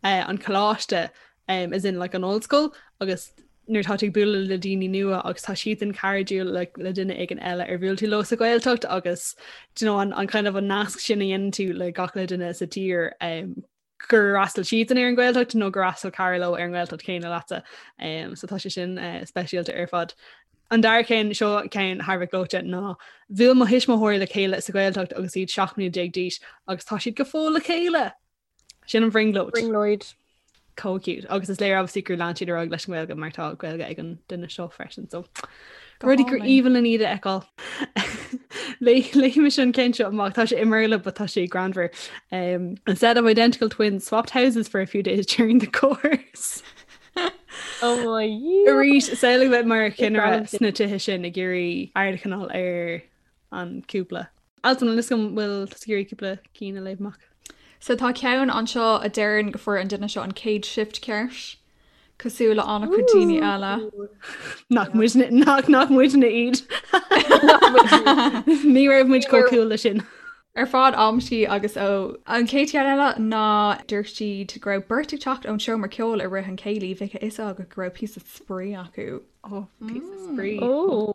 eh, an coláiste um, as in like an ollscoil agus nuair atá tú ag bualadh le daoine nua agus tá siadsan cairdiúil le, le duine éigin eile ar bhuail tú leo sa Ghaeltacht agus do you know, an, an kind of an nasc sin a dhéanann tú le gach uile duine sa tír um, gur fhreastail siadsan ar an Ghaeltacht nó gur fhreastail cara leo ar an nGaeltacht chéanna leatsa. Um, so tá sé sin uh, speisialta ar fad. An dara ceann seo ceann thar a bheith gleoite ná bhuail mo thuismitheoirí le chéile sa Ghaeltacht agus iad 17 mbliana d'aois agus tá siad go fóill le chéile. Sin an bhrionglóid. Brionglóid. Chomh cute. Agus is léir obviously gur lean siad ar aghaidh leis an nGaeilge mar tá Gaeilge ag an duine seo freisin. So rudaí gur aoibhinn linn iad a fheiceáil. Léifidh mise an ceann seo amach tá sé i mBéarla but tá sé greannmhar. Um, a set of identical twins swapped houses for a few days during the course. Oh my Arís samhlaigh bheith mar chinnire sna tithe sin ag iarraidh aird a choinneáil ar an cúpla. Altan an bhfuil bhfuil tusa ag iarraidh cúpla cinn a léamh amach. So tá ceann anseo a deireann go fuair an duine seo an chéad shift ceart, cosúil le an-chuid daoine eile. Nach muidne nach nach muidne iad. Ní raibh muid chomh cool le sin. Ar fad amscaí agus ó. An chéad cheann eile ná dúirt siad go raibh beirt ag teacht ón seomra ceoil i rith an chéilí, bheadh a fhios agat go raibh píosa spraoi acu. Oh, píosa spraoi. Oh.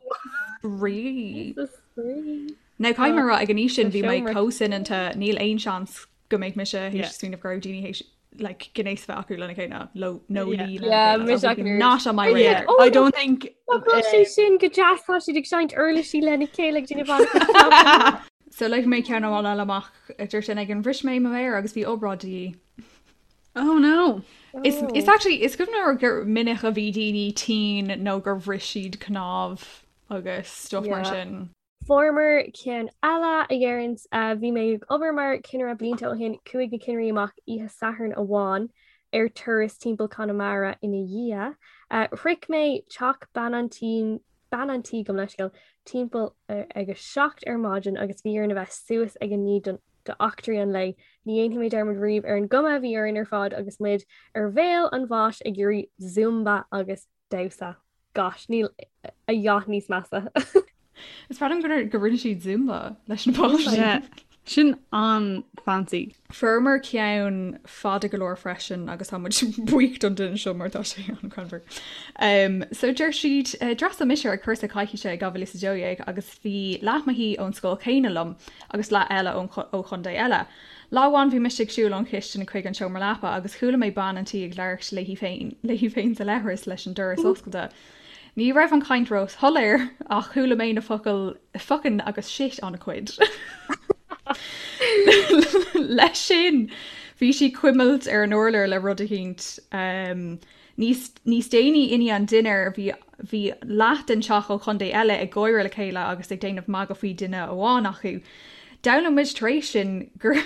Spraoi. Píosa spraoi. Now caithfidh mé a rá ag an aois sin bhí mé chomh soineanta níl aon seans go mbeadh mise théis smaoineamh go raibh daoine théis like gnéas a bheith acu lena chéile leo nó léi lena Yeah, chéile. mise That would be ach not on my radar. Oh, I don't think Tá sé sin go deas tá siad ag seinnt uirlisí lena chéile ag déanamh an- So léifidh mé ceann amháin eile amach a deir sin ag an bhris mé mo mhéar agus bhí obráid de dhíth. Oh no. Is is actually is cuimhin liom gur minic a bhí daoine tinn nó gur bhris siad cnámh agus stuff mar Yeah. sin. Fuaireamar ceann eile a dheireann bhí mé ag obair mar chinnire blianta ó shin, chuaigh na cinnirí amach oíche Sathairn amháin ar turas timpeall Conamara ina dhiaidh. Shroich mé teach bean an tí, bean an tí gabh mo leithscéal, timpeall ag a 7 ar maidin agus bhí orainn a bheith suas ag a 9 don d'eachtraí an lae. Ní dhéanfaidh mé dearmad riamh ar an gcuma a bhí orainn ar fad agus muid ar bhéal an bháis ag iarraidh zumba agus damhsa. Gosh, níl a dhath níos measa. Is breá liom gur go rinne siad Zumba leis na páistí. Yeah. Sin an-fancy. Fuaireamar ceann fada go leor freisin agus tá muid buíoch don duine seo mar tá sé an-ghreannmhar. Um, so deir siad uh, d'fhreastail mise ar cúrsa coicíse i 2012 agus bhí leath mo thí ón scoil chéanna liom agus leath eile ón ó chontae eile. Lá amháin bhí mise ag siúl ón chistin chuig an seomra leapa agus chuala mé bean an tí ag labhairt léi féin léi féin sa leithreas leis an doras oscailte. Ní raibh an chaint róshoiléir ach chuala mé na focail 'fuckin' agus 'shit' an-chuid. Leis sin, bhí sí ag cuimilt ar an urlár le rud eicínt. Níos níos déanaí i ndiaidh an dinnéir, bhí bhí leath den teach ó chontae eile ag gáire le chéile agus ag déanamh magadh faoi duine amháin acu. D'fhoghlaim muid tar éis sin gur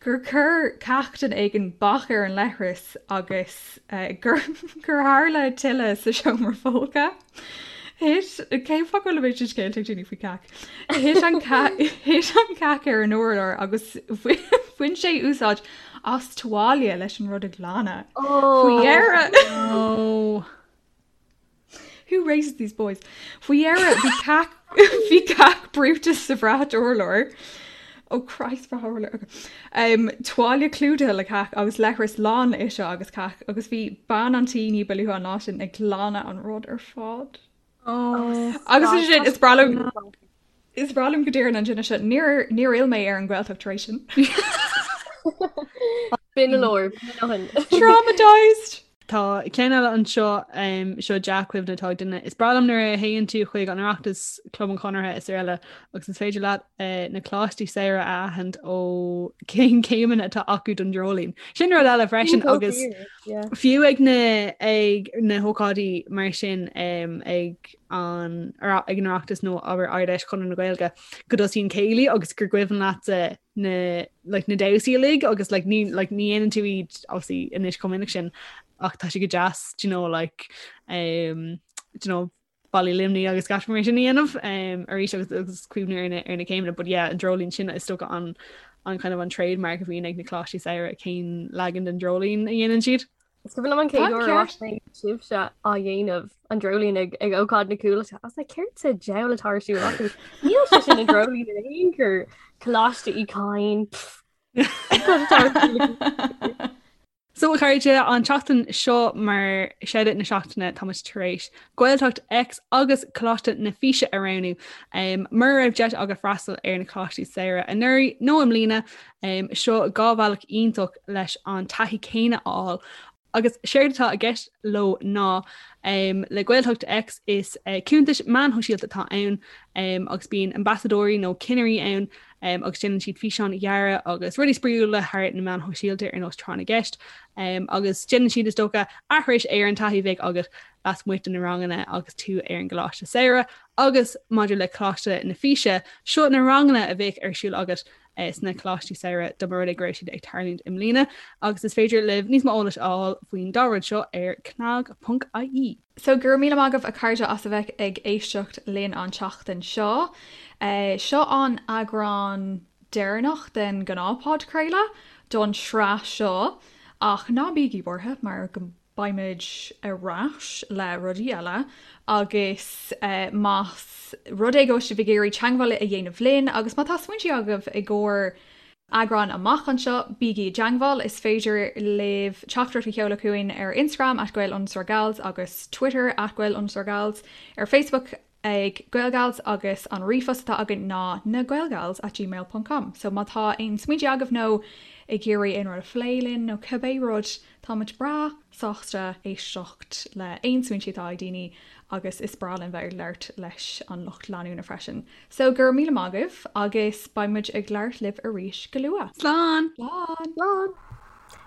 gur chuir cac duine éigin bac ar an leithreas agus gur gur tharla tuile sa seomra folctha. Thit, cén fáth go bhfuil an méid sin scéalta ag daoine faoi cac? Thit an thit an cac ar an urlár agus bhain sé úsáid as tuáille leis an rud a ghlanadh. Faoi dheireadh. Oh. Who raises these boys? Faoi dheireadh bhí cac bhí cac brúite sa bhrat urláir. Oh Christ brat urláir. Okay. Um, tuáille clúdaithe le cac agus leithreas lán le uisce agus cac agus bhí bean an tí ní ba luaithe an lá sin ag glanadh an rud ar fad. Oh. Agus is sin is breá liom is breá liom go deireann an duine seo níor níor fhill mé ar an Ghaeltacht tar éis sin. B'in a leor. Traumatized! Tá ceann eile anseo, seo dea-chuimhne atá ag duine. Is breá liom nuair a théann tú chuig an Oireachtas, Club an Chonartha is araile agus is féidir leat na coláistí samhraidh a aithint ó cén céimeanna atá acu don dreoilín. Sin rud eile freisin agus fiú ag na ag na hócáidí mar sin ag an ag an Oireachtas nó abair Ard-Fheis Chonradh na Gaeilge go dtosaíonn céilí agus gur cuimhin leatsa na like na damhsaí uilig agus like ní like ní dhéanann tú iad obviously anois chomh minic sin ach tá sé go deas do you know like um do you know Ballaí Luimnigh agus gach mar sin a dhéanamh um arís agus agus cuimhniú ar na ar na céimeanna but yeah an dreoilín sin is dócha an an kind of an trademark a bhíonn ag na coláistí samhraidh cén leagan den dreoilín a dhéanann siad. Is cuimhin liom an chéad uair a bhfaca mé sibhse á dhéanamh an dreoilín ag ag ócáid na Cúlata. I was like, céard sa diabhal atá ar siúl acu? Níl sé sin an dreoilín in aon chor. Coláiste Uí Chadhain. Cad atá ar siúl acu? So a chairde, an tseachtain seo mar shout-out na seachtaine tá muid tar éis Gaeltacht X agus Coláiste na Físe a roghnú. Um, mura raibh deis agat freastal ar na Coláistí Samhraidh anuraidh nó i mbliana, Seo 2 bhealach iontach leis an taithí céanna a fháil agus séard atá i gceist leo ná le Gaeltacht X is cuntais meáin shóisialta atá ann agus bíonn ambasadóirí nó cinnirí ann agus déanann siad físeáin ghearra agus rudaí spraíúla thar na meáin shóisialta ar nós tráth na gceist agus déanann siad is dócha aithris ar an taithí a bheadh agat lasmuigh de na ranganna agus tú ar an gcoláiste samhraidh agus maidir le Coláiste na Físe, seo na ranganna a bheadh ar siúl agat sna Coláistí Samhraidh dá mba rud é go raibh siad ag tarlúint i mbliana agus is féidir libh níos mó eolais a fháil faoin dá rud seo ar cnag.ie. So go raibh míle maith agaibh a chairde as a bheith ag éisteacht linn an tseachtain seo. Seo an eagrán deireanach den ghnáthphodchraoladh don sraith seo ach ná bígí buartha mar go Beimid ar ais le rudaí eile agus más rud é go bhfuil sibh ag iarraidh teagmháil a dhéanamh linn agus má tá smaointe agaibh i gcomhair eagrán amach anseo, bígí i dteagmháil. Is féidir libh teachtaireacht a sheoladh chugainn ar Instagram at gael underscore gals agus Twitter at gael underscore gals, ar Facebook ag GaelGals agus an ríomhphost atá againn ná nagaelgals at gmail ponc com. So má tá aon smaointe agaibh nó ag iarraidh aon rud a phlé linn nó cibé rud, táimid breá sásta éisteacht le aon smaointe atá ag daoine agus is breá linn bheith ag labhairt leis an lucht leanúna freisin. So go raibh míle maith agaibh agus beidh muid ag labhairt libh arís go luath. Slán! Slán! Slán!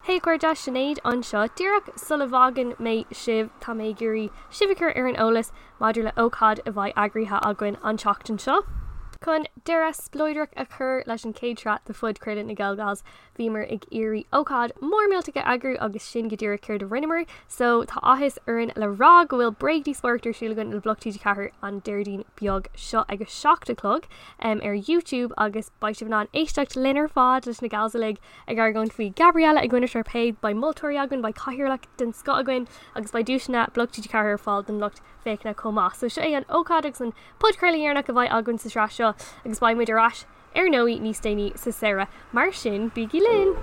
Hey a chairde, Sinéad anseo. Díreach sula bhfágann mé sibh, tá mé ag iarraidh sibh a chur ar an eolas maidir le ócáid a bheidh eagraithe againn an tseachtain seo. Chun deireadh spleodrach a chur leis an chéad sraith de phodchraoladh na GaelGals, bhíomar ag iarraidh ócáid mór millteach a eagrú agus sin go díreach céard a rinneamar. So tá áthas orainn le rá go bhfuil bréagdhíospóireacht ar siúl againn le Bloc TG4 an Déardaoin beag seo ag a 7 a chlog ar YouTube agus beidh sibh in ann éisteacht linn ar fad leis na gals uilig ag argóint faoi Gabriella i gcoinne Sharpay, beidh moltóirí againn, beidh cathaoirleach den scoth againn agus beidh duaiseanna Bloc TG4 ar fáil don lucht féachana chomh maith. So seo é an ócáid agus an podchraoladh dheireanach a bheidh againn sa sraith seo agus beidh muid ar ais ar ndóigh níos déanaí sa samhradh. Mar sin, bígí linn!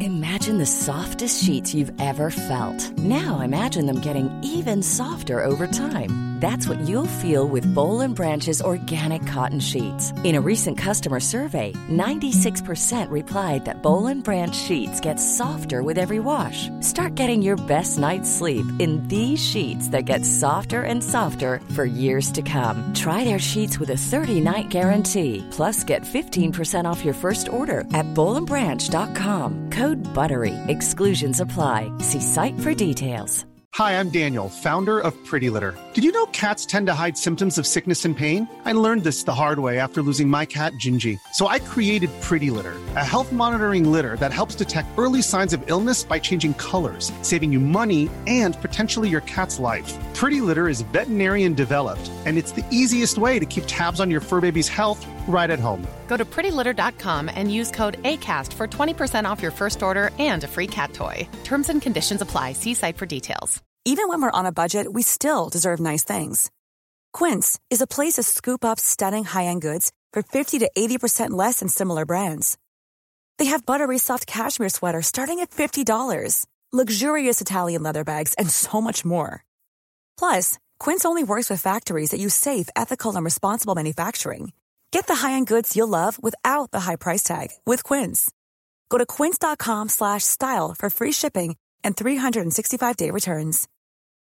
Imagine the the softest sheets you've ever felt. Now imagine them getting even softer over time. That's what you'll feel with Boll and Branch's organic cotton sheets. In a recent customer survey, 96% replied that Boll and Branch sheets get softer with every wash. Start getting your best night's sleep in these sheets that get softer and softer for years to come. Try their sheets with a 30-night guarantee. Plus, get 15% off your first order at bollandbranch.com. Code BUTTERY. Exclusions apply. See site for details. Hi, I'm Daniel, founder of Pretty Litter. Did you know cats tend to hide symptoms of sickness and pain? I learned this the hard way after losing my cat, Gingy. So I created Pretty Litter, a health monitoring litter that helps detect early signs of illness by changing colors, saving you money and potentially your cat's life. Pretty Litter is veterinarian developed, and it's the easiest way to keep tabs on your fur baby's health right at home. Go to prettylitter.com and use code ACAST for 20% off your first order and a free cat toy. Terms and conditions apply. See site for details. Even when we're on a budget, we still deserve nice things. Quince is a place to scoop up stunning high-end goods for 50 to 80% less than similar brands. They have buttery soft cashmere sweaters starting at $50, luxurious Italian leather bags, and so much more. Plus, Quince only works with factories that use safe, ethical, and responsible manufacturing. Get the high-end goods you'll love without the high price tag with Quince. Go to quince.com slash style for free shipping and 365-day returns.